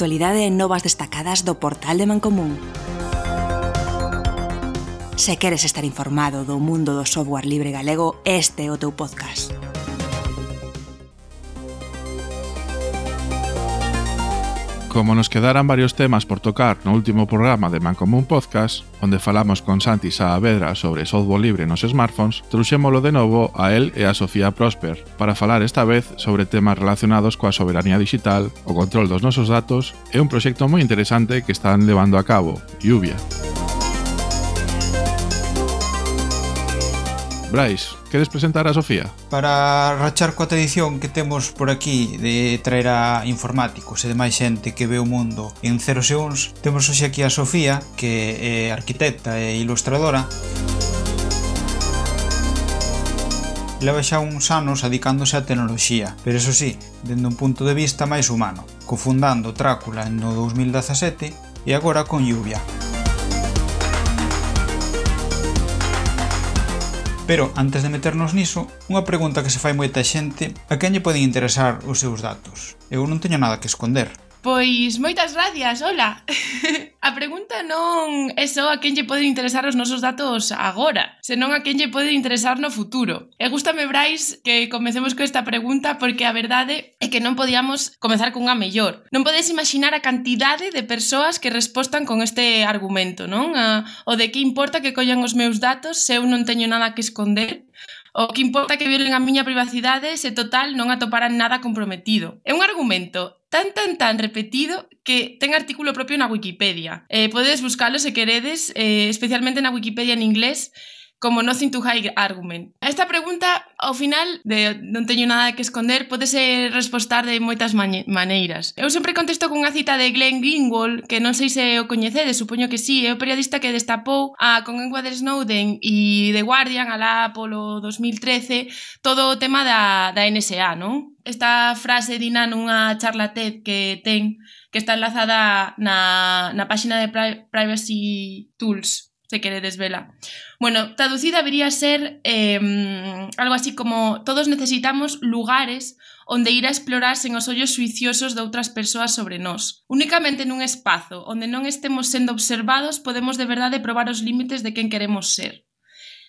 actualidade e novas destacadas do portal de Mancomún. Se queres estar informado do mundo do software libre galego, este é o teu podcast. Como nos quedaran varios temas por tocar no último programa de Mancomún Podcast, onde falamos con Santi Saavedra sobre software libre nos smartphones, trouxémolo de novo a él e a Sofía Prosper para falar esta vez sobre temas relacionados coa soberanía digital, o control dos nosos datos e un proxecto moi interesante que están levando a cabo, Lluvia. Brais, queres presentar a Sofía? Para rachar coa tradición que temos por aquí de traer a informáticos e demais xente que ve o mundo en 0 segundos, temos hoxe aquí a Sofía, que é arquitecta e ilustradora. Leva xa uns anos adicándose á tecnoloxía, pero eso sí, dende un punto de vista máis humano, cofundando Trácula no 2017 e agora con Lluvia. Pero, antes de meternos niso, unha pregunta que se fai moita xente: a quen lle poden interesar os seus datos? Eu non teño nada que esconder. Pois moitas gracias, hola. A pregunta non é só a quen lle poden interesar os nosos datos agora, senón a quen lle pode interesar no futuro. E gústame, Brais, que comecemos con esta pregunta porque a verdade é que non podíamos comezar cunha mellor. Non podes imaginar a cantidade de persoas que respostan con este argumento, non? O de que importa que collan os meus datos se eu non teño nada que esconder? O que importa que violen a miña privacidade se total non atoparan nada comprometido. É un argumento tan repetido que ten artículo propio na Wikipedia. Podedes buscalo se queredes, especialmente na Wikipedia en inglés, como Nothing to Hide Argument. Esta pregunta, ao final, de non teño nada que esconder, podese respostar de moitas maneiras. Eu sempre contesto con unha cita de Glenn Greenwald, que non sei se o coñecedes, supoño que sí, é o periodista que destapou con Edward Snowden e The Guardian alá polo 2013 todo o tema da NSA, non? Esta frase dina nunha charla TED que ten, que está enlazada na páxina de Privacy Tools, se queredes vela. Bueno, traducida debería ser algo así como: todos necesitamos lugares onde ir a explorar sen os ollos suiciosos de outras persoas sobre nós. Únicamente nun espazo onde non estemos sendo observados podemos de verdade probar os límites de quen queremos ser.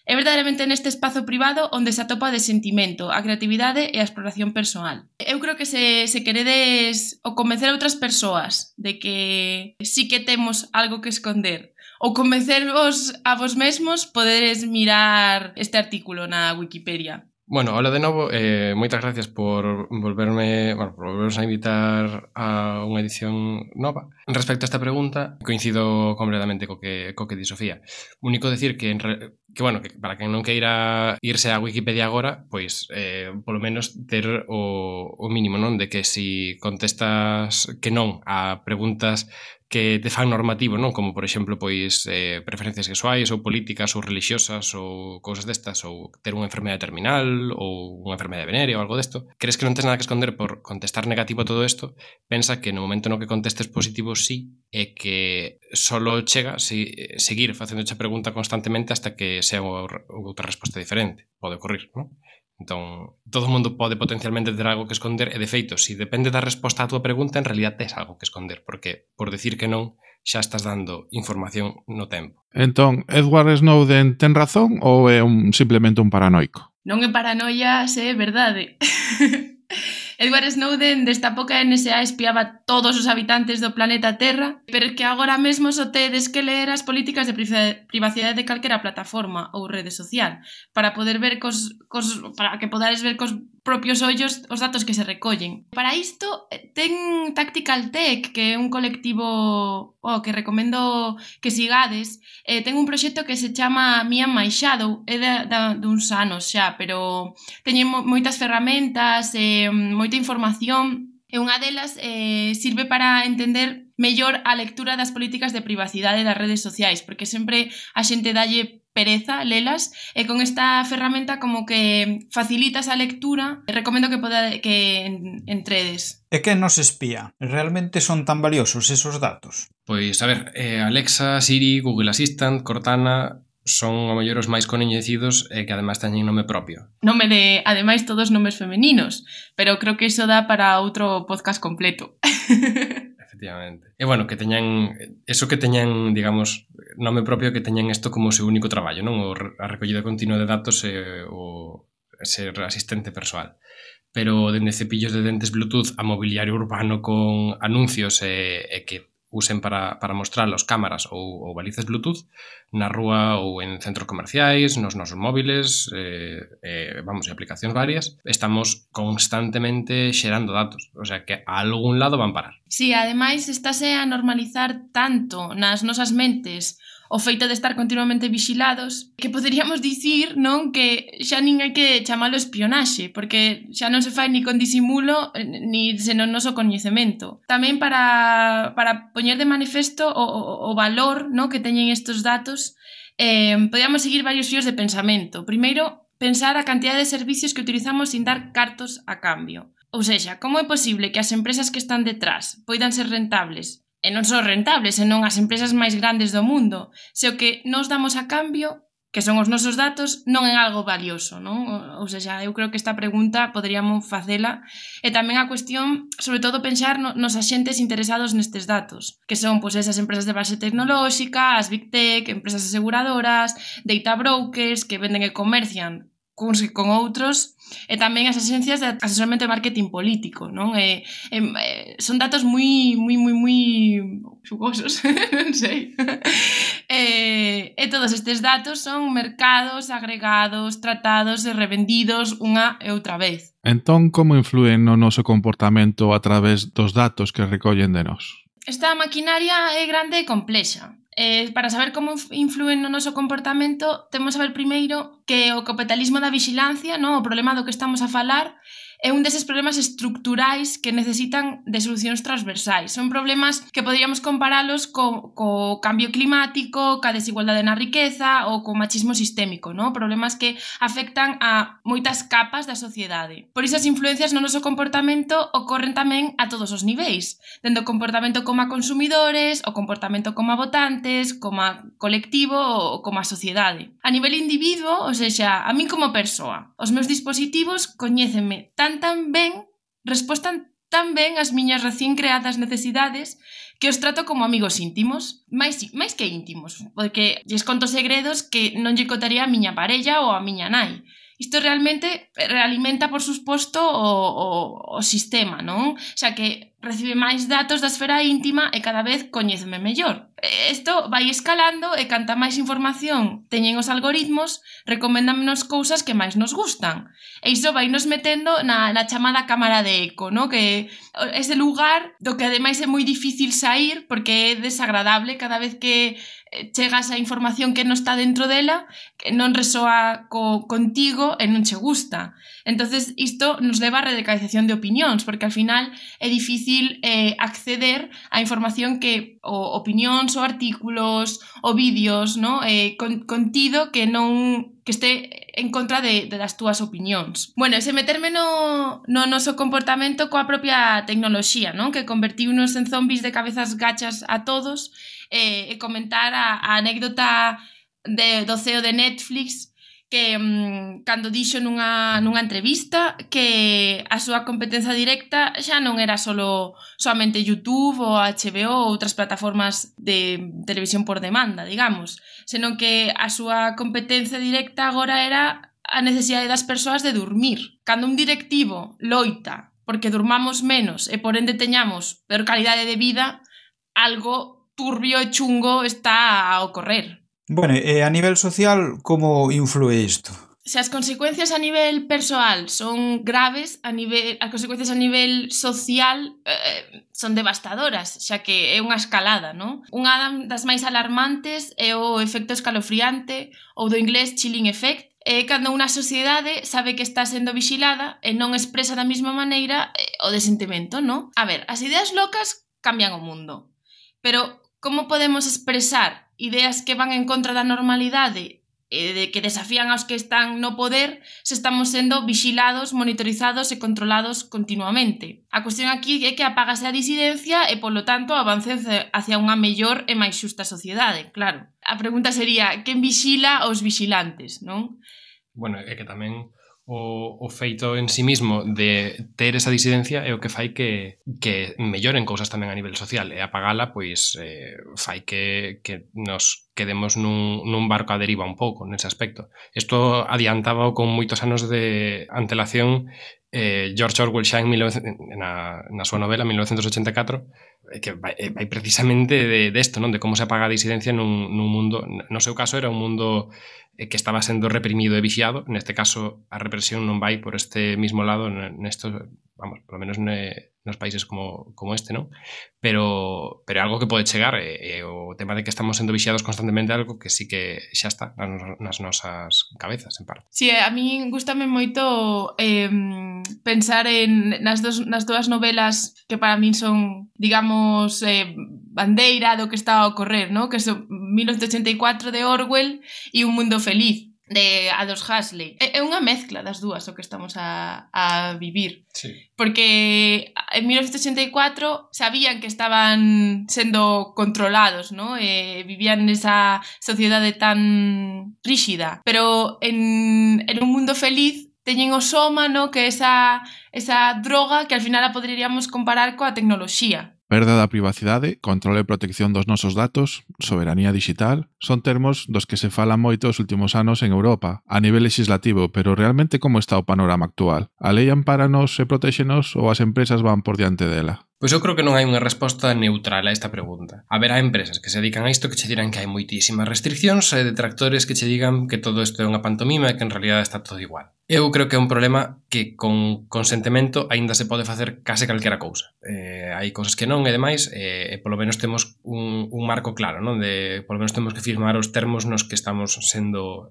É verdadeiramente neste espazo privado onde se atopa o desentimento, a creatividade e a exploración persoal. Eu creo que se queredes o convencer a outras persoas de que sí que temos algo que esconder, ou convencervos a vos mesmos, poderes mirar este artículo na Wikipedia. Bueno, hola de novo, moitas gracias por volvernos a invitar a unha edición nova. Respecto a esta pregunta, coincido completamente co que di Sofía. Único decir que para quen non queira irse á Wikipedia agora, pois polo menos ter o mínimo, non? De que si contestas que non a preguntas que te fan normativo, non? Como, por exemplo, pois preferencias sexuais ou políticas ou religiosas ou cousas destas, ou ter unha enfermedade terminal ou unha enfermedade venérea ou algo desto. Crees que non tes nada que esconder por contestar negativo a todo isto? Pensa que no momento no que contestes positivo sí, é que solo chega seguir facendo esa pregunta constantemente hasta que sea outra resposta diferente. Pode ocurrir, non? Entón, todo o mundo pode potencialmente ter algo que esconder e, de feito, se depende da resposta á túa pregunta, en realidad tes algo que esconder, porque por decir que non, xa estás dando información no tempo. Entón, Edward Snowden ten razón ou é simplemente un paranoico? Non é paranoia, se é verdade. Edward Snowden destapou que a NSA espiaba todos os habitantes do planeta Terra, pero que agora mesmo só tedes que ler as políticas de privacidade de calquera plataforma ou rede social para poder ver para que podades ver cos propios ollos os datos que se recollen. Para isto ten Tactical Tech, que é un colectivo que recomendo que sigades. Ten un proxecto que se chama Me and My Shadow, é duns anos xa, pero teñen moitas ferramentas, moita información, e unha delas sirve para entender mellor a lectura das políticas de privacidade das redes sociais, porque sempre a xente dalle pereza lelas, e con esta ferramenta como que facilitas a lectura. Recomendo que entredes. E que nos espía? Realmente son tan valiosos esos datos? Pois, a ver, Alexa, Siri, Google Assistant, Cortana son o mellor os máis coñecidos e que ademais teñen nome propio. Nome de, ademais, todos nomes femeninos, pero creo que iso dá para outro podcast completo. efectivamente. E bueno, que teñan eso, que teñan, digamos, nome propio, que teñan isto como o seu único traballo, non? A recollida continua de datos e o ser asistente persoal. Pero dende cepillos de dentes Bluetooth a mobiliario urbano con anuncios e que usen para mostralos cámaras ou balizas Bluetooth na rúa ou en centros comerciais, nos nosos móviles, vamos, e aplicacións varias, estamos constantemente xerando datos, o sea que a algún lado van parar. Sí, ademais estáse a normalizar tanto nas nosas mentes o feito de estar continuamente vixilados que poderíamos dicir, non, que xa nin hai que chamalo espionaxe, porque xa non se fai ni con disimulo ni sen o noso coñecemento. Tamén para poñer de manifesto o valor, non, que teñen estes datos, podíamos seguir varios fíos de pensamento. Primeiro, pensar a cantidad de servicios que utilizamos sin dar cartos a cambio. Ou seja, como é posible que as empresas que están detrás poidan ser rentables? E non só rentables, senón as empresas máis grandes do mundo, se o que nos damos a cambio, que son os nosos datos, non é algo valioso, non? Ou seja, eu creo que esta pregunta poderíamos facela, e tamén a cuestión, sobre todo, pensar nos axentes interesados nestes datos, que son pois esas empresas de base tecnolóxica, as Big Tech, empresas aseguradoras, data brokers, que venden e comercian con outros, e tamén as agencias de asesoramento de marketing político, non? Son datos moi xugosos, non sei. E todos estes datos son mercados, agregados, tratados e revendidos unha e outra vez. Entón, como influen no noso comportamento a través dos datos que recollen de nós? Esta maquinaria é grande e complexa. Para saber como influen no noso comportamento, temos que saber primeiro que o capitalismo da vixilancia, no, o problema do que estamos a falar, é un deses problemas estructurais que necesitan de solucións transversais. Son problemas que poderíamos comparalos co cambio climático, ca desigualdade na riqueza ou co machismo sistémico, no? Problemas que afectan a moitas capas da sociedade. Por iso as influencias no noso comportamento ocorren tamén a todos os niveis, dende o comportamento como a consumidores, o comportamento como a votantes, como a colectivo ou como a sociedade. A nivel individuo, ou seja, a min como persoa, os meus dispositivos coñécenme tan ben, respostan tan ben as miñas recén creadas necesidades que os trato como amigos íntimos, máis que íntimos, porque lles conto segredos que non lle contaría a miña parella ou a miña nai. Isto realmente realimenta, por suposto, o sistema, non? Xa que recibe máis datos da esfera íntima e cada vez coñéceme mellor. Isto vai escalando e canta máis información teñen os algoritmos, recoméndanos cousas que máis nos gustan. E iso vai nos metendo na chamada cámara de eco, no? Que ese lugar do que ademais é moi difícil sair porque é desagradable cada vez que chegas a información que non está dentro dela, que non resoa contigo e non che gusta. Entonces isto nos leva a radicalización de opinións, porque al final é difícil acceder a información que o opinións, ou artículos, ou vídeos, no? Contido que non que este en contra das túas opinións. Bueno, ese meterme no noso comportamento coa propia tecnoloxía, non? Que convertiunos en zombis de cabezas gachas a todos, e comentar a anécdota do CEO de Netflix que cando dixo nunha entrevista que a súa competencia directa xa non era soamente YouTube ou HBO ou outras plataformas de televisión por demanda, digamos, senón que a súa competencia directa agora era a necesidade das persoas de dormir. Cando un directivo loita porque durmamos menos e por ende teñamos peor calidade de vida, algo turbio e chungo está a ocorrer. Bueno, e a nivel social, como influe isto? Se as consecuencias a nivel persoal son graves, as consecuencias a nivel social son devastadoras, xa que é unha escalada, non? Unha das máis alarmantes é o efecto escalofriante ou do inglés chilling effect, é cando unha sociedade sabe que está sendo vigilada e non expresa da mesma maneira o desentimento, non? A ver, as ideas locas cambian o mundo, pero como podemos expresar ideas que van en contra da normalidade e de que desafían aos que están no poder se estamos sendo vixilados, monitorizados e controlados continuamente? A cuestión aquí é que apágase a disidencia e, polo tanto, avance hacia unha mellor e máis xusta sociedade, claro. A pregunta sería, quen vixila aos vixilantes, non? Bueno, é que tamén o feito en sí mismo de ter esa disidencia é o que fai que melloren cousas tamén a nivel social, e apagala pois fai que nos quedemos nun barco a deriva un pouco nese aspecto. Isto adiantaba con moitos anos de antelación George Orwell xa na súa novela 1984, que vai precisamente desto, non? De como se apaga a disidencia nun mundo, no seu caso era un mundo que estaba sendo reprimido e vixiado. Neste caso a represión non vai por este mismo lado nesto, vamos, polo menos nos países como este, non? Pero algo que pode chegar, e o tema de que estamos sendo vixiados constantemente, algo que sí que xa está nas nosas cabezas, en parte. Sí, a mí gustame moito pensar nas dúas novelas que para min son, digamos, bandeira do que está a ocorrer, ¿no? Que son 1984 de Orwell e Un mundo feliz de Aldous Huxley. É unha mezcla das dúas o que estamos a vivir. Sí. Porque en 1984 sabían que estaban sendo controlados, ¿no? Vivían nesa sociedade tan ríxida. Pero en Un mundo feliz teñen o soma, ¿no? Que esa droga que al final a poderíamos comparar coa tecnoloxía. Perda da privacidade, controle e protección dos nosos datos, soberanía digital, son termos dos que se falan moito os últimos anos en Europa, a nivel legislativo, pero realmente como está o panorama actual? A lei ampáranos e protéxenos ou as empresas van por diante dela? Pois eu creo que non hai unha resposta neutral a esta pregunta. Haberá empresas que se dedican a isto que che dirán que hai moitísimas restriccións e detractores que che digan que todo isto é unha pantomima e que en realidad está todo igual. Eu creo que é un problema que con consentimento aínda se pode facer case calquera cousa. Hai cousas que non e demais, e polo menos temos un marco claro, non? Polo menos temos que firmar os termos nos que estamos sendo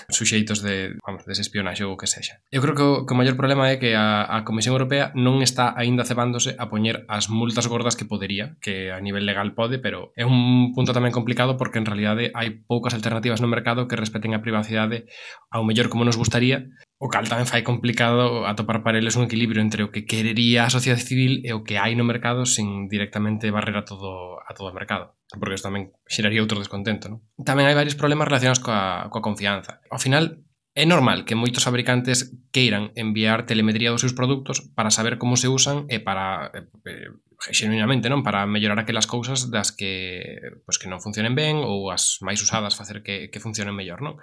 suxeitos dese espionaxe ou o que sexa. Eu creo que o maior problema é que a Comisión Europea non está aínda cebándose a poñer as multas gordas que podería, que a nivel legal pode, pero é un punto tamén complicado porque en realidade hai poucas alternativas no mercado que respeten a privacidade ao mellor como nos gustaría, o cal tamén fai complicado atopar para eles un equilibrio entre o que querería a sociedade civil e o que hai no mercado sin directamente barrer a todo o mercado, porque isto tamén xeraría outro descontento, non? Tamén hai varios problemas relacionados coa confianza. Ao final, é normal que moitos fabricantes queiran enviar telemetría dos seus produtos para saber como se usan e para, xenuinamente, non, para mellorar aquelas cousas das que non funcionen ben ou as máis usadas facer que funcionen mellor, non?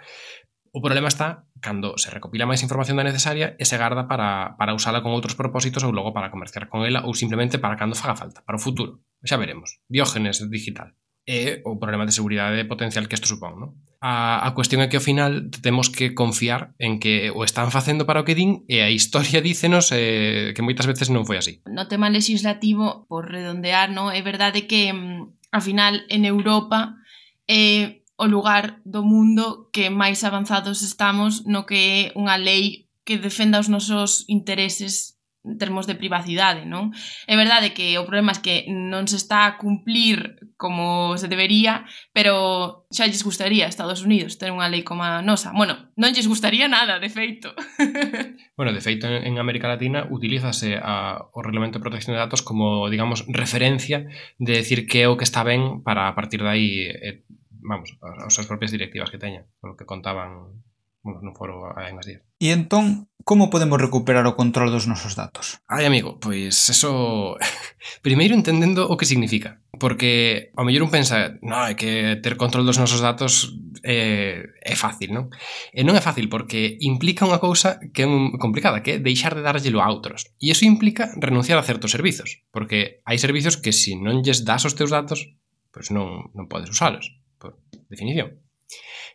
O problema está cando se recopila máis información da necesaria e se garda para usala con outros propósitos ou logo para comerciar con ela ou simplemente para cando faga falta, para o futuro. Xa veremos. Diógenes digital. E o problema de seguridade potencial que isto supón, non? A cuestión é que ao final temos que confiar en que o están facendo para o que din e a historia dícenos que moitas veces non foi así. No tema legislativo, por redondear, no, é verdade que ao final en Europa é o lugar do mundo que máis avanzados estamos no que é unha lei que defenda os nosos intereses en termos de privacidade, non? É verdade que o problema é que non se está a cumplir como se debería, pero xa lles gustaría a Estados Unidos ter unha lei como a nosa. Bueno, non lles gustaría nada, de feito. Bueno, de feito, en América Latina utilízase o Reglamento de Protección de Datos como, digamos, referencia de decir que é o que está ben para a partir de aí, as súas propias directivas que teñan, polo que contaban no foro hai unhas días. E entón, como podemos recuperar o control dos nosos datos? Ai, amigo, pois eso... Primeiro entendendo o que significa. Porque ao mellor un pensa, é que ter control dos nosos datos é fácil, non? E non é fácil porque implica unha cousa que é complicada, que é deixar de darllelo a outros. E iso implica renunciar a certos servizos. Porque hai servizos que se non lles das os teus datos, pois non podes usalos, por definición.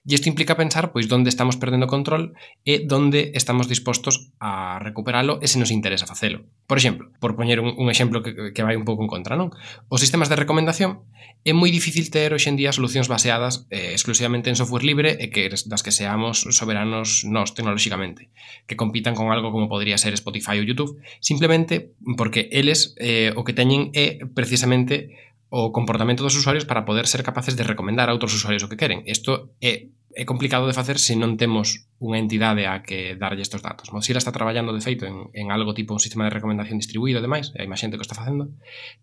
E isto implica pensar pois onde estamos perdendo control e onde estamos dispostos a recuperalo e se nos interesa facelo. Por exemplo, por poñer un exemplo que vai un pouco en contra, non? Os sistemas de recomendación é moi difícil ter hoxe en día solucións baseadas exclusivamente en software libre e que das que seamos soberanos nós tecnolóxicamente, que compitan con algo como podría ser Spotify ou YouTube, simplemente porque eles o que teñen é precisamente o comportamento dos usuarios para poder ser capaces de recomendar a outros usuarios o que queren. Isto é é complicado de facer se non temos unha entidade a que darlle estes datos. Mozilla está traballando, de feito, en algo tipo un sistema de recomendación distribuído e demais, hai máis xente que o está facendo,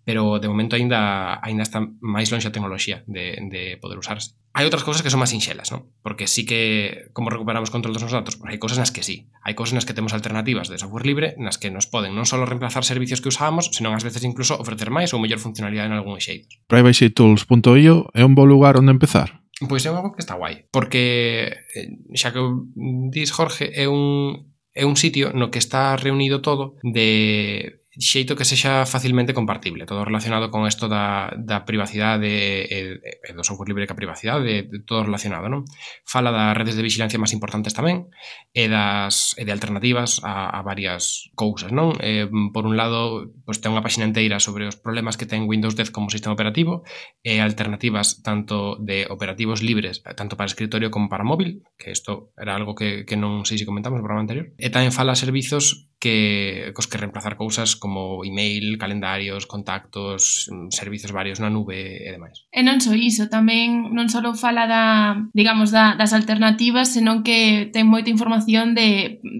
pero de momento ainda está máis longe a tecnoloxía de poder usarse. Hai outras cousas que son máis sinxelas, non? Porque sí que, como recuperamos control dos nosos datos, pues hai cousas nas que sí. Hai cousas nas que temos alternativas de software libre nas que nos poden non só reemplazar servicios que usábamos, senón ás veces incluso ofrecer máis ou mellor funcionalidade en algúns xeitos. PrivacyTools.io é un bo lugar onde empezar? Pois é algo que está guai, porque xa que dis, Jorge, é un sitio no que está reunido todo de xeito que sexa facilmente compartible, todo relacionado con isto da privacidade e do software libre que a privacidade, todo relacionado, non? Fala das redes de vigilancia máis importantes tamén e de alternativas a varias cousas, non? Por un lado, pues, ten unha páxina inteira sobre os problemas que ten Windows 10 como sistema operativo e alternativas tanto de operativos libres, tanto para escritorio como para móvil, que isto era algo que non sei se comentamos no programa anterior, e tamén fala servizos cos que reemplazar cousas como email, calendarios, contactos, servizos varios na nube e demais. E non só iso, tamén non só fala das alternativas, senón que ten moita información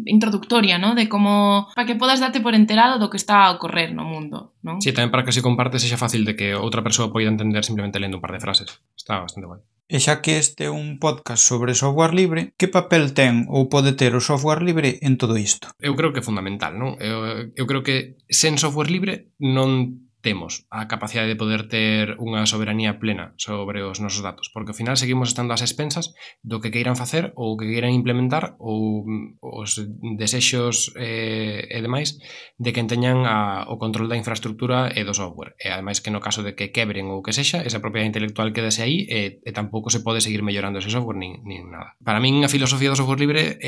introductoria, ¿no? De como para que podas darte por enterado do que está a ocorrer no mundo, non? Sí, tamén para que se comparte sexa fácil de que outra persoa poida entender simplemente lendo un par de frases. Está bastante guai. E xa que este é un podcast sobre software libre, que papel ten ou pode ter o software libre en todo isto? Eu creo que é fundamental, non? Eu creo que sen software libre non temos a capacidade de poder ter unha soberanía plena sobre os nosos datos, porque ao final seguimos estando ás expensas do que queiran facer ou que queiran implementar ou os desexos e demais de quen teñan o control da infraestructura e do software. E ademais que no caso de que quebren ou que sexa, esa propiedade intelectual quedase aí e tampouco se pode seguir mellorando ese software nin nada. Para min a filosofía do software libre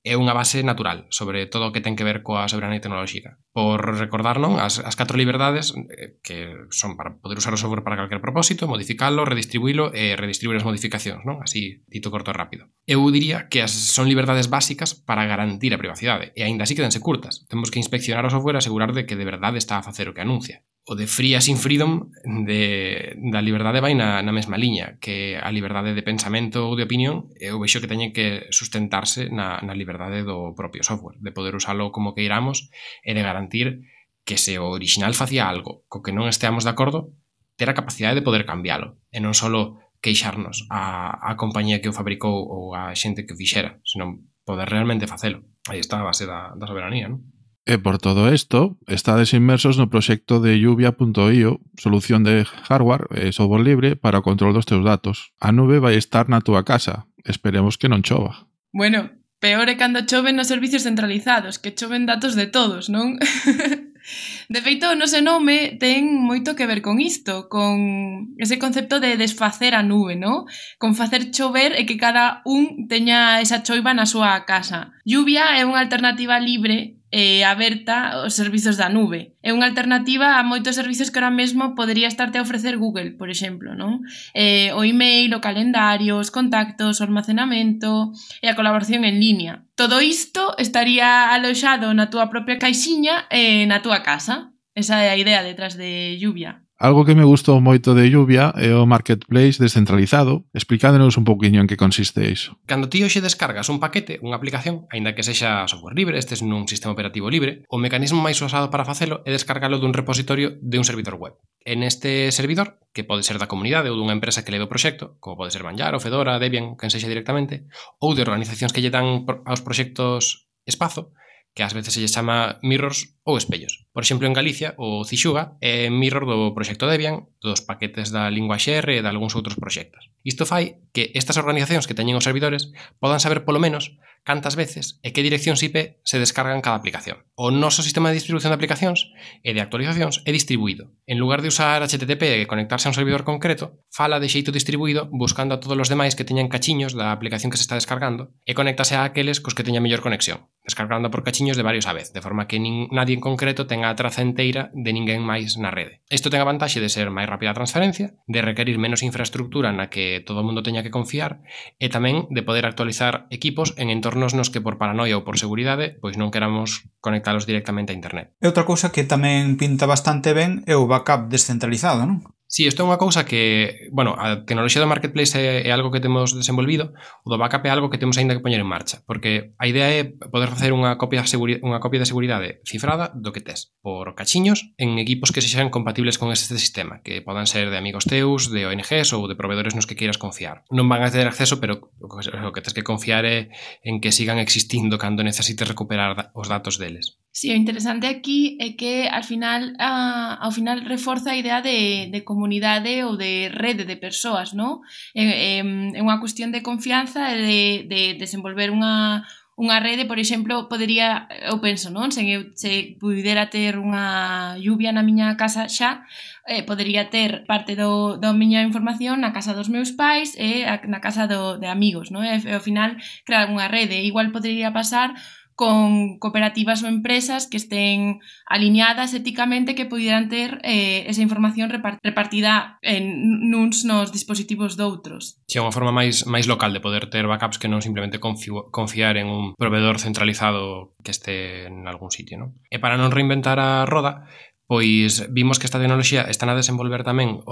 é unha base natural sobre todo o que ten que ver coa soberanía tecnolóxica. Por recordar, non, as 4 liberdades que son para poder usar o software para calquer propósito, modificalo, redistribuílo e redistribuir as modificacións, non? Así, dito corto e rápido. Eu diría que son liberdades básicas para garantir a privacidade e aínda así quedanse curtas. Temos que inspeccionar o software e asegurar de que de verdade está a facer o que anuncia. O de free as in freedom da liberdade vai na mesma liña que a liberdade de pensamento ou de opinión. Eu vexo que teñen que sustentarse na liberdade do propio software, de poder usalo como queiramos e de garantir que se o original facía algo co que non esteamos de acordo, ter a capacidade de poder cambialo e non só queixarnos a compañía que o fabricou ou a xente que o fixera, senón poder realmente facelo. Aí está a base da soberanía, non? E por todo isto, estades inmersos no proxecto de Lluvia.io, solución de hardware e software libre para o control dos teus datos. A nube vai estar na túa casa. Esperemos que non chova. Bueno, peor é cando choven nos servicios centralizados, que choven datos de todos, non? De feito, o noso nome ten moito que ver con isto, con ese concepto de desfacer a nube, non? Con facer chover e que cada un teña esa choiva na súa casa. Lluvia é unha alternativa libre e aberta aos servizos da nube. É unha alternativa a moitos servizos que ahora mesmo podría estarte a ofrecer Google, por exemplo, non? O email, o calendario, os contactos, o almacenamento e a colaboración en línea. Todo isto estaría aloxado na túa propia caixiña e na túa casa. Esa é a idea detrás de Lluvia. Algo que me gustou moito de Lluvia é o marketplace descentralizado. Explicándonos un poquinho en que consiste iso. Cando ti hoxe descargas un paquete, unha aplicación, aínda que sexa software libre, estes nun sistema operativo libre, o mecanismo máis usado para facelo é descargalo dun repositorio de un servidor web. En este servidor, que pode ser da comunidade ou dunha empresa que leve o proxecto, como pode ser Manjaro, Fedora, Debian, quen sexa directamente, ou de organizacións que lle dan aos proxectos espazo, que ás veces se lle chama mirrors ou espellos. Por exemplo, en Galicia, o Cixuga é mirror do proxecto Debian, dos paquetes da linguaxe R e de algúns outros proxectos. Isto fai que estas organizacións que teñen os servidores podan saber polo menos cantas veces e que direccións IP se descargan cada aplicación. O noso sistema de distribución de aplicacións e de actualizacións é distribuído. En lugar de usar HTTP e conectarse a un servidor concreto, fala de xeito distribuído buscando a todos os demais que teñan cachiños da aplicación que se está descargando e conéctase a aqueles cos que teña mellor conexión, descargando por cachiños de varios a vez, de forma que nadie en concreto tenga a traza enteira de ninguén máis na rede. Isto ten a vantaxe de ser máis rápida a transferencia, de requerir menos infraestructura na que todo o mundo teña que confiar e tamén de poder actualizar equipos en entornos nos que por paranoia ou por seguridade pois non queramos conectalos directamente a internet. E outra cousa que tamén pinta bastante ben é o backup descentralizado, non? Sí, isto é unha cousa que, bueno, a tecnoloxía do marketplace é algo que temos desenvolvido, o do backup é algo que temos aínda que poñer en marcha, porque a idea é poder facer unha copia de seguridade cifrada do que tes, por cachiños, en equipos que sexan compatibles con este sistema, que podan ser de amigos teus, de ONGs ou de proveedores nos que queiras confiar. Non van a ter acceso, pero o que tes que confiar é en que sigan existindo cando necesites recuperar os datos deles. Sí, o interesante aquí é que ao final reforza a idea de comunidade ou de rede de persoas, non? É unha cuestión de confianza e de desenvolver unha rede, por exemplo, podería, eu penso, non? Se pudera ter unha lluvia na miña casa xa, podería ter parte da miña información na casa dos meus pais e na casa de amigos, non? E ao final crear unha rede. Igual podería pasar con cooperativas ou empresas que estén alineadas éticamente que pudieran ter esa información repartida nuns nos dispositivos doutros. Si é unha forma máis local de poder ter backups que non simplemente confiar en un proveedor centralizado que este en algún sitio, non? E para non reinventar a roda, pois vimos que esta tecnoloxía están a desenvolver tamén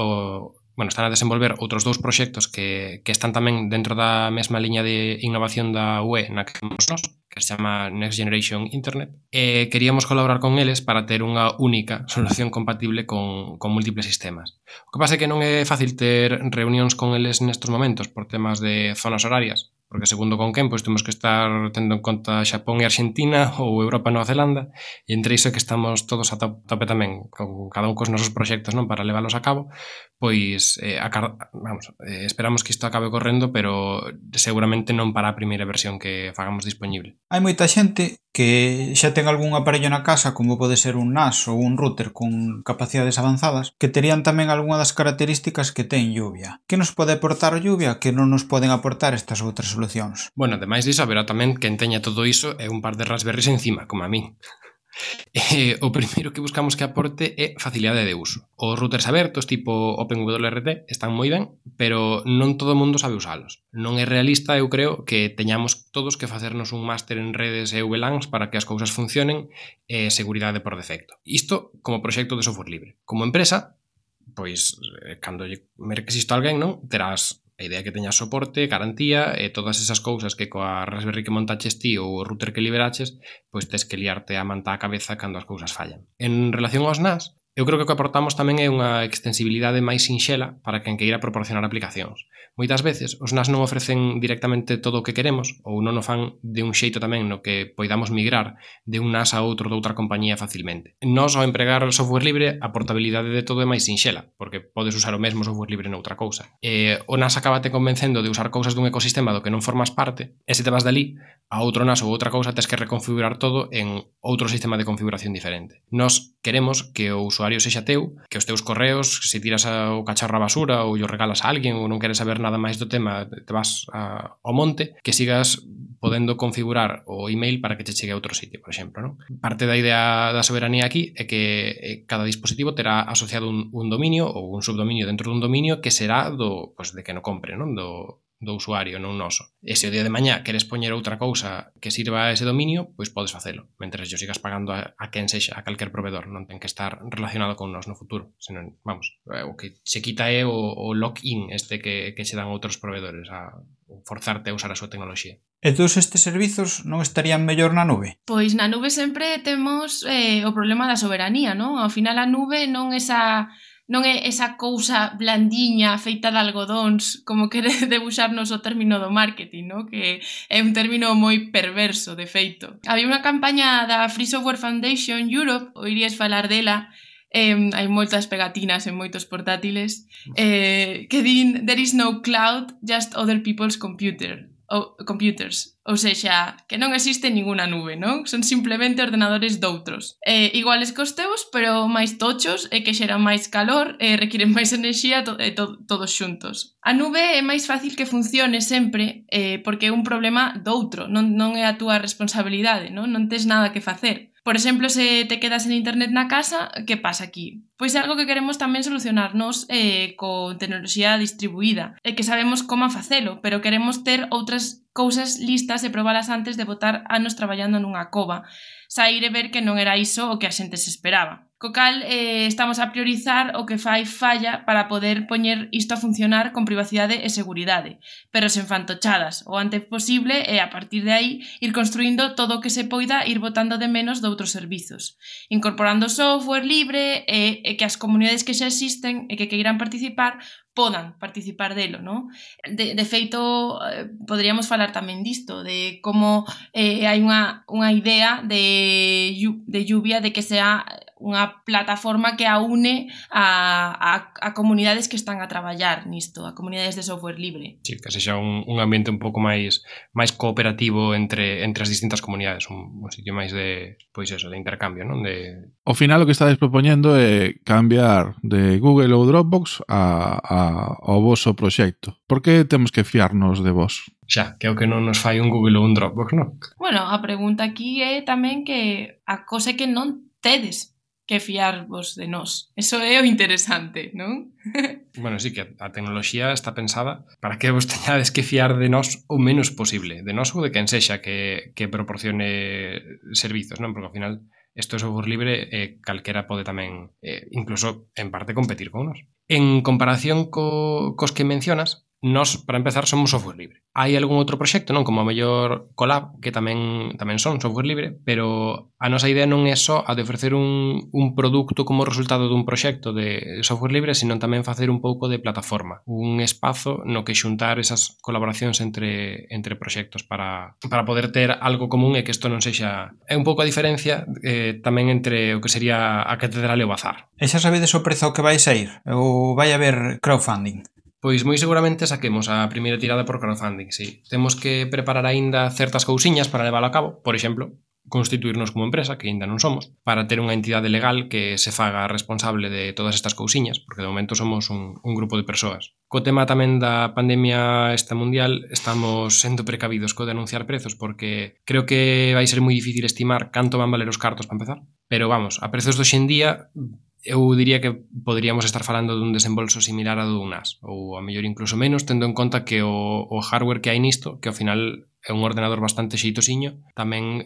están a desenvolver outros dous proxectos que están tamén dentro da mesma liña de innovación da UE na que estamos nós, que se chama Next Generation Internet, e queríamos colaborar con eles para ter unha única solución compatible con múltiples sistemas. O que pasa é que non é fácil ter reunións con eles nestes momentos por temas de zonas horarias, porque segundo con quen, pois temos que estar tendo en conta Xapón e Argentina ou Europa e Nova Zelanda, e entre iso que estamos todos a tope tamén con cada un cos nosos proxectos, non, para leválos a cabo, pois esperamos que isto acabe correndo, pero seguramente non para a primeira versión que fagamos disponible. Hai moita xente que xa ten algún aparello na casa, como pode ser un NAS ou un router con capacidades avanzadas, que terían tamén algunha das características que ten lluvia. Que nos pode aportar lluvia que non nos poden aportar estas outras solucións? Bueno, ademais disso, haberá tamén quen teña todo iso e un par de Raspberries encima, como a min. O primeiro que buscamos que aporte é facilidade de uso. Os routers abertos tipo OpenWRT están moi ben, pero non todo o mundo sabe usalos. Non é realista, eu creo, que teñamos todos que facernos un máster en redes e VLANs para que as cousas funcionen e seguridade por defecto. Isto como proxecto de software libre. Como empresa, pois, cando merques isto a alguén, non, terás a idea que teñas soporte, garantía e todas esas cousas que coa Raspberry que montaches ti ou o router que liberaches, pois tes que liarte a manta a cabeza cando as cousas fallan. En relación aos NAS, eu creo que o que aportamos tamén é unha extensibilidade máis sinxela para quen queira proporcionar aplicacións. Moitas veces os NAS non ofrecen directamente todo o que queremos ou non o fan de un xeito tamén no que poidamos migrar de un NAS a outro doutra compañía facilmente. Nós, ao empregar o software libre, a portabilidade de todo é máis sinxela, porque podes usar o mesmo software libre noutra cousa. O NAS acabate convencendo de usar cousas dun ecosistema do que non formas parte, e se te vas dali a outro NAS ou outra cousa, tes que reconfigurar todo en outro sistema de configuración diferente. Nós queremos que o usuario sexa teu, que os teus correos, se tiras o cacharro á basura ou o regalas a alguén ou non queres saber nada máis do tema, te vas ao monte, que sigas podendo configurar o email para que che chegue a outro sitio, por exemplo, non? Parte da idea da soberanía aquí é que cada dispositivo terá asociado un dominio ou un subdominio dentro dun dominio que será de que no compre, non? Do usuario, non noso. E se o día de mañá queres poñer outra cousa que sirva a ese dominio, pois podes facelo, mentre yo sigas pagando a quen sexa, a calquer proveedor, non ten que estar relacionado con nós no futuro, senón, o que se quita é o lock-in que che dan outros proveedores a forzarte a usar a súa tecnoloxía. E todos estes servizos non estarían mellor na nube? Pois na nube sempre temos o problema da soberanía, non? Ao final a nube non é esa cousa blandiña feita de algodóns como quere debuxarnos o término do marketing, no? Que é un término moi perverso, de feito. Había unha campaña da Free Software Foundation Europe, oirías falar dela, hai moitas pegatinas en moitos portátiles, que din "There is no cloud, just other people's computers", ou sexa, que non existe ninguna nube, non? Son simplemente ordenadores doutros. Iguales cos teus, pero máis tochos e que xeran máis calor e requiren máis enerxía todos xuntos. A nube é máis fácil que funcione sempre porque é un problema doutro, non é a túa responsabilidade, non tes nada que facer. Por exemplo, se te quedas en internet na casa, que pasa aquí? Pois é algo que queremos tamén solucionarnos con tecnoloxía distribuída, e que sabemos como facelo, pero queremos ter outras cousas listas e probalas antes de botar anos traballando nunha cova, sair e ver que non era iso o que a xente se esperaba. Co cal estamos a priorizar o que fai falla para poder poñer isto a funcionar con privacidade e seguridade, pero sen fantochadas, o antes posible e a partir de aí ir construindo todo o que se poida ir botando de menos de outros servizos, incorporando software libre e que as comunidades que xa existen e que queiran participar podan participar delo, non? De feito, poderíamos falar tamén disto, de como hai unha idea de lluvia de que sea unha plataforma que aúne a comunidades que están a traballar nisto, a comunidades de software libre. Sí, que sexa un ambiente un pouco máis cooperativo entre as distintas comunidades, un sitio máis de, pois eso, de intercambio, non? Ao final o que estades propoñendo é cambiar de Google ou Dropbox ao voso proxecto. Por que temos que fiarnos de vos? Xa, que é o que non nos fai un Google ou un Dropbox, non? Bueno, a pregunta aquí é tamén que a cosa que non tedes que fiarvos de nós. Eso é o interesante, non? Bueno, sí, que a tecnoloxía está pensada para que vos teñades que fiar de nós o menos posible, de nós ou de quen sexa que proporcione servizos, non? Porque ao final isto é software libre e calquera pode tamén, incluso en parte, competir con nós. En comparación cos que mencionas, nós, para empezar, somos software libre. Hai algún outro proxecto, non? Como a mellor Colab, que tamén son software libre, pero a nosa idea non é só a de ofrecer un produto como resultado dun proxecto de software libre, sino tamén facer un pouco de plataforma, un espazo no que xuntar esas colaboracións entre proxectos para poder ter algo común e que isto non sexa... É un pouco a diferencia tamén entre o que sería a catedral e o bazar. E xa sabedes o prezo que vai sair? Ou vai haber crowdfunding? Pois moi seguramente saquemos a primeira tirada por crowdfunding, sí. Temos que preparar aínda certas cousiñas para leválo a cabo, por exemplo, constituirnos como empresa, que aínda non somos, para ter unha entidade legal que se faga responsable de todas estas cousiñas, porque de momento somos un grupo de persoas. Co tema tamén da pandemia esta mundial, estamos sendo precavidos co de anunciar prezos, porque creo que vai ser moi difícil estimar canto van valer os cartos para empezar. Pero vamos, a prezos de hoxendía, eu diría que poderíamos estar falando dun desembolso similar a dun NAS, ou a mellor incluso menos, tendo en conta que o hardware que hai nisto, que ao final é un ordenador bastante xeitosiño, tamén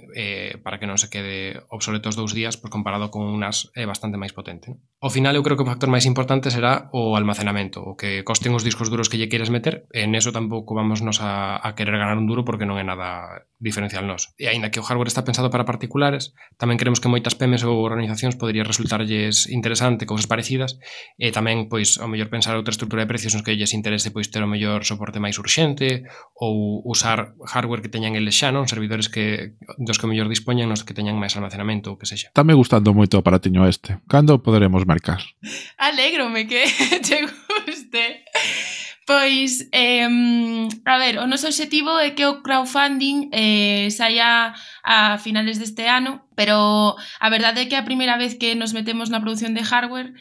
para que non se quede obsoleto os 2 días, pois comparado con un NAS é bastante máis potente. Ao final eu creo que o factor máis importante será o almacenamento, o que costen os discos duros que lle queiras meter, e en eso tampouco vamos nos a querer ganar un duro porque non é nada diferencial nos. E aínda que o hardware está pensado para particulares, tamén creemos que moitas PEMES ou organizacións podría resultarlles interesante cousas parecidas, e tamén, pois, ao mellor pensar outra estrutura de precios nos que lles interese, pois, ter o mellor soporte máis urxente ou usar hardware que teñan eles xa, non? Servidores dos que mellor dispoñan, nos que teñan máis almacenamento ou que sexa. Está me gustando moito o aparatiño este. Cando poderemos mercar? Alégrome que te guste. Pois, a ver, o noso objetivo é que o crowdfunding saia a finales deste ano, pero a verdade é que a primeira vez que nos metemos na produción de hardware,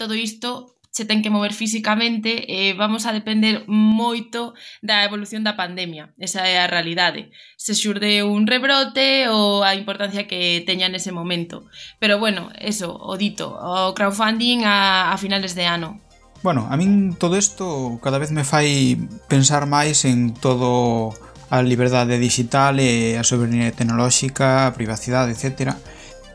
todo isto se ten que mover físicamente e vamos a depender moito da evolución da pandemia. Esa é a realidade. Se xurde un rebrote ou a importancia que teña nese momento. Pero bueno, eso, o dito, o crowdfunding a finales de ano. Bueno, a min todo isto cada vez me fai pensar máis en todo a liberdade digital e a soberanía tecnolóxica, a privacidade, etc.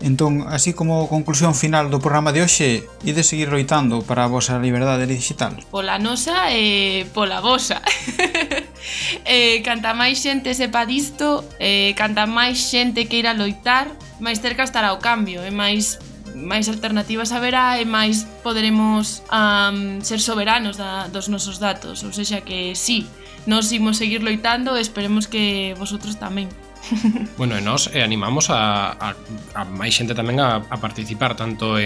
Entón, así como conclusión final do programa de hoxe, ides seguir loitando para a vosa liberdade digital? Pola nosa e pola vosa. Canta máis xente sepa disto, canta máis xente queira loitar, máis cerca estará o cambio, e máis alternativas haberá e máis poderemos ser soberanos dos nosos datos. Ou seja que sí, nós imos seguir loitando e esperemos que vosotros tamén. Bueno, e nós animamos a máis xente tamén a participar tanto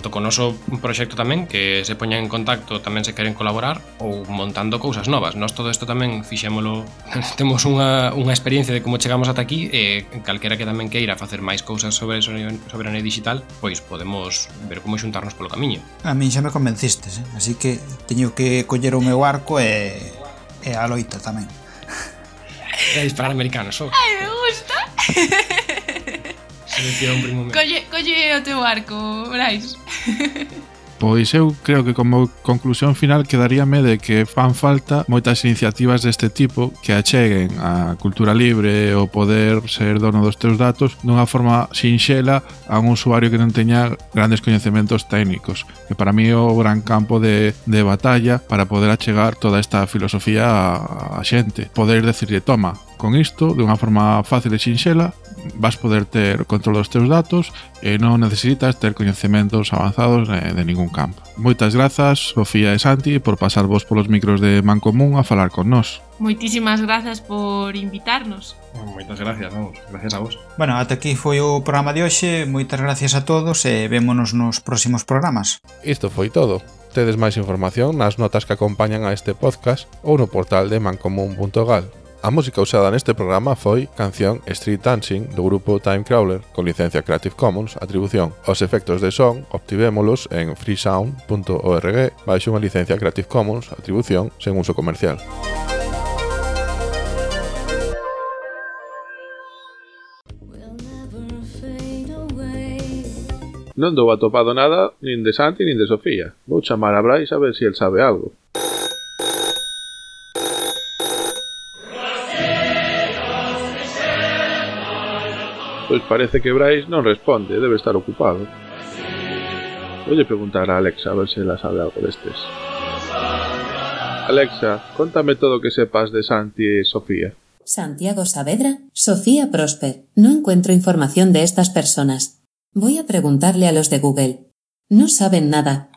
con o noso proxecto tamén, que se poñan en contacto tamén se queren colaborar ou montando cousas novas. Nós todo isto tamén fixémolo, temos unha experiencia de como chegamos ata aquí, e calquera que tamén queira facer máis cousas sobre soberanía digital, pois podemos ver como xuntarnos polo camiño. A min xa me convencistes, así que teño que coller o meu arco e a loita tamén. É disparar americanos, só. Ai, me gusta. Selección primo meu. Colle o teu arco, Brais. Pois eu creo que como conclusión final quedaríame de que fan falta moitas iniciativas deste tipo que acheguen a cultura libre o poder ser dono dos teus datos dunha forma sinxela a un usuario que non teña grandes coñecementos técnicos, que para mí é o gran campo de batalla para poder achegar toda esta filosofía a xente. Poder decirle, toma, con isto, de unha forma fácil e sinxela, vas poder ter control dos teus datos e non necesitas ter coñecementos avanzados de ningún campo. Moitas grazas, Sofía e Santi, por pasarvos polos micros de Mancomún a falar con nós. Moitísimas grazas por invitarnos. Moitas gracias, vamos, gracias a vos. Bueno, ata aquí foi o programa de hoxe. Moitas gracias a todos e vémonos nos próximos programas. Isto foi todo. Tedes máis información nas notas que acompañan a este podcast ou no portal de mancomún.gal. A música usada neste programa foi canción Street Dancing do grupo Timecrawler con licencia Creative Commons, atribución. Os efectos de son obtivémolos en freesound.org baixo unha licencia Creative Commons, atribución sen uso comercial. Non dou atopado nada nin de Santi nin de Sofía. Vou chamar a Brais a ver se el sabe algo. Pois parece que Brais non responde, debe estar ocupado. Voulle preguntar a Alexa a ver se ela sabe algo destes. Alexa, contame todo o que sepas de Santi e Sofía. Santiago Saavedra, Sofía Prosper. No encuentro información de estas personas. Voy a preguntarle a los de Google. No saben nada.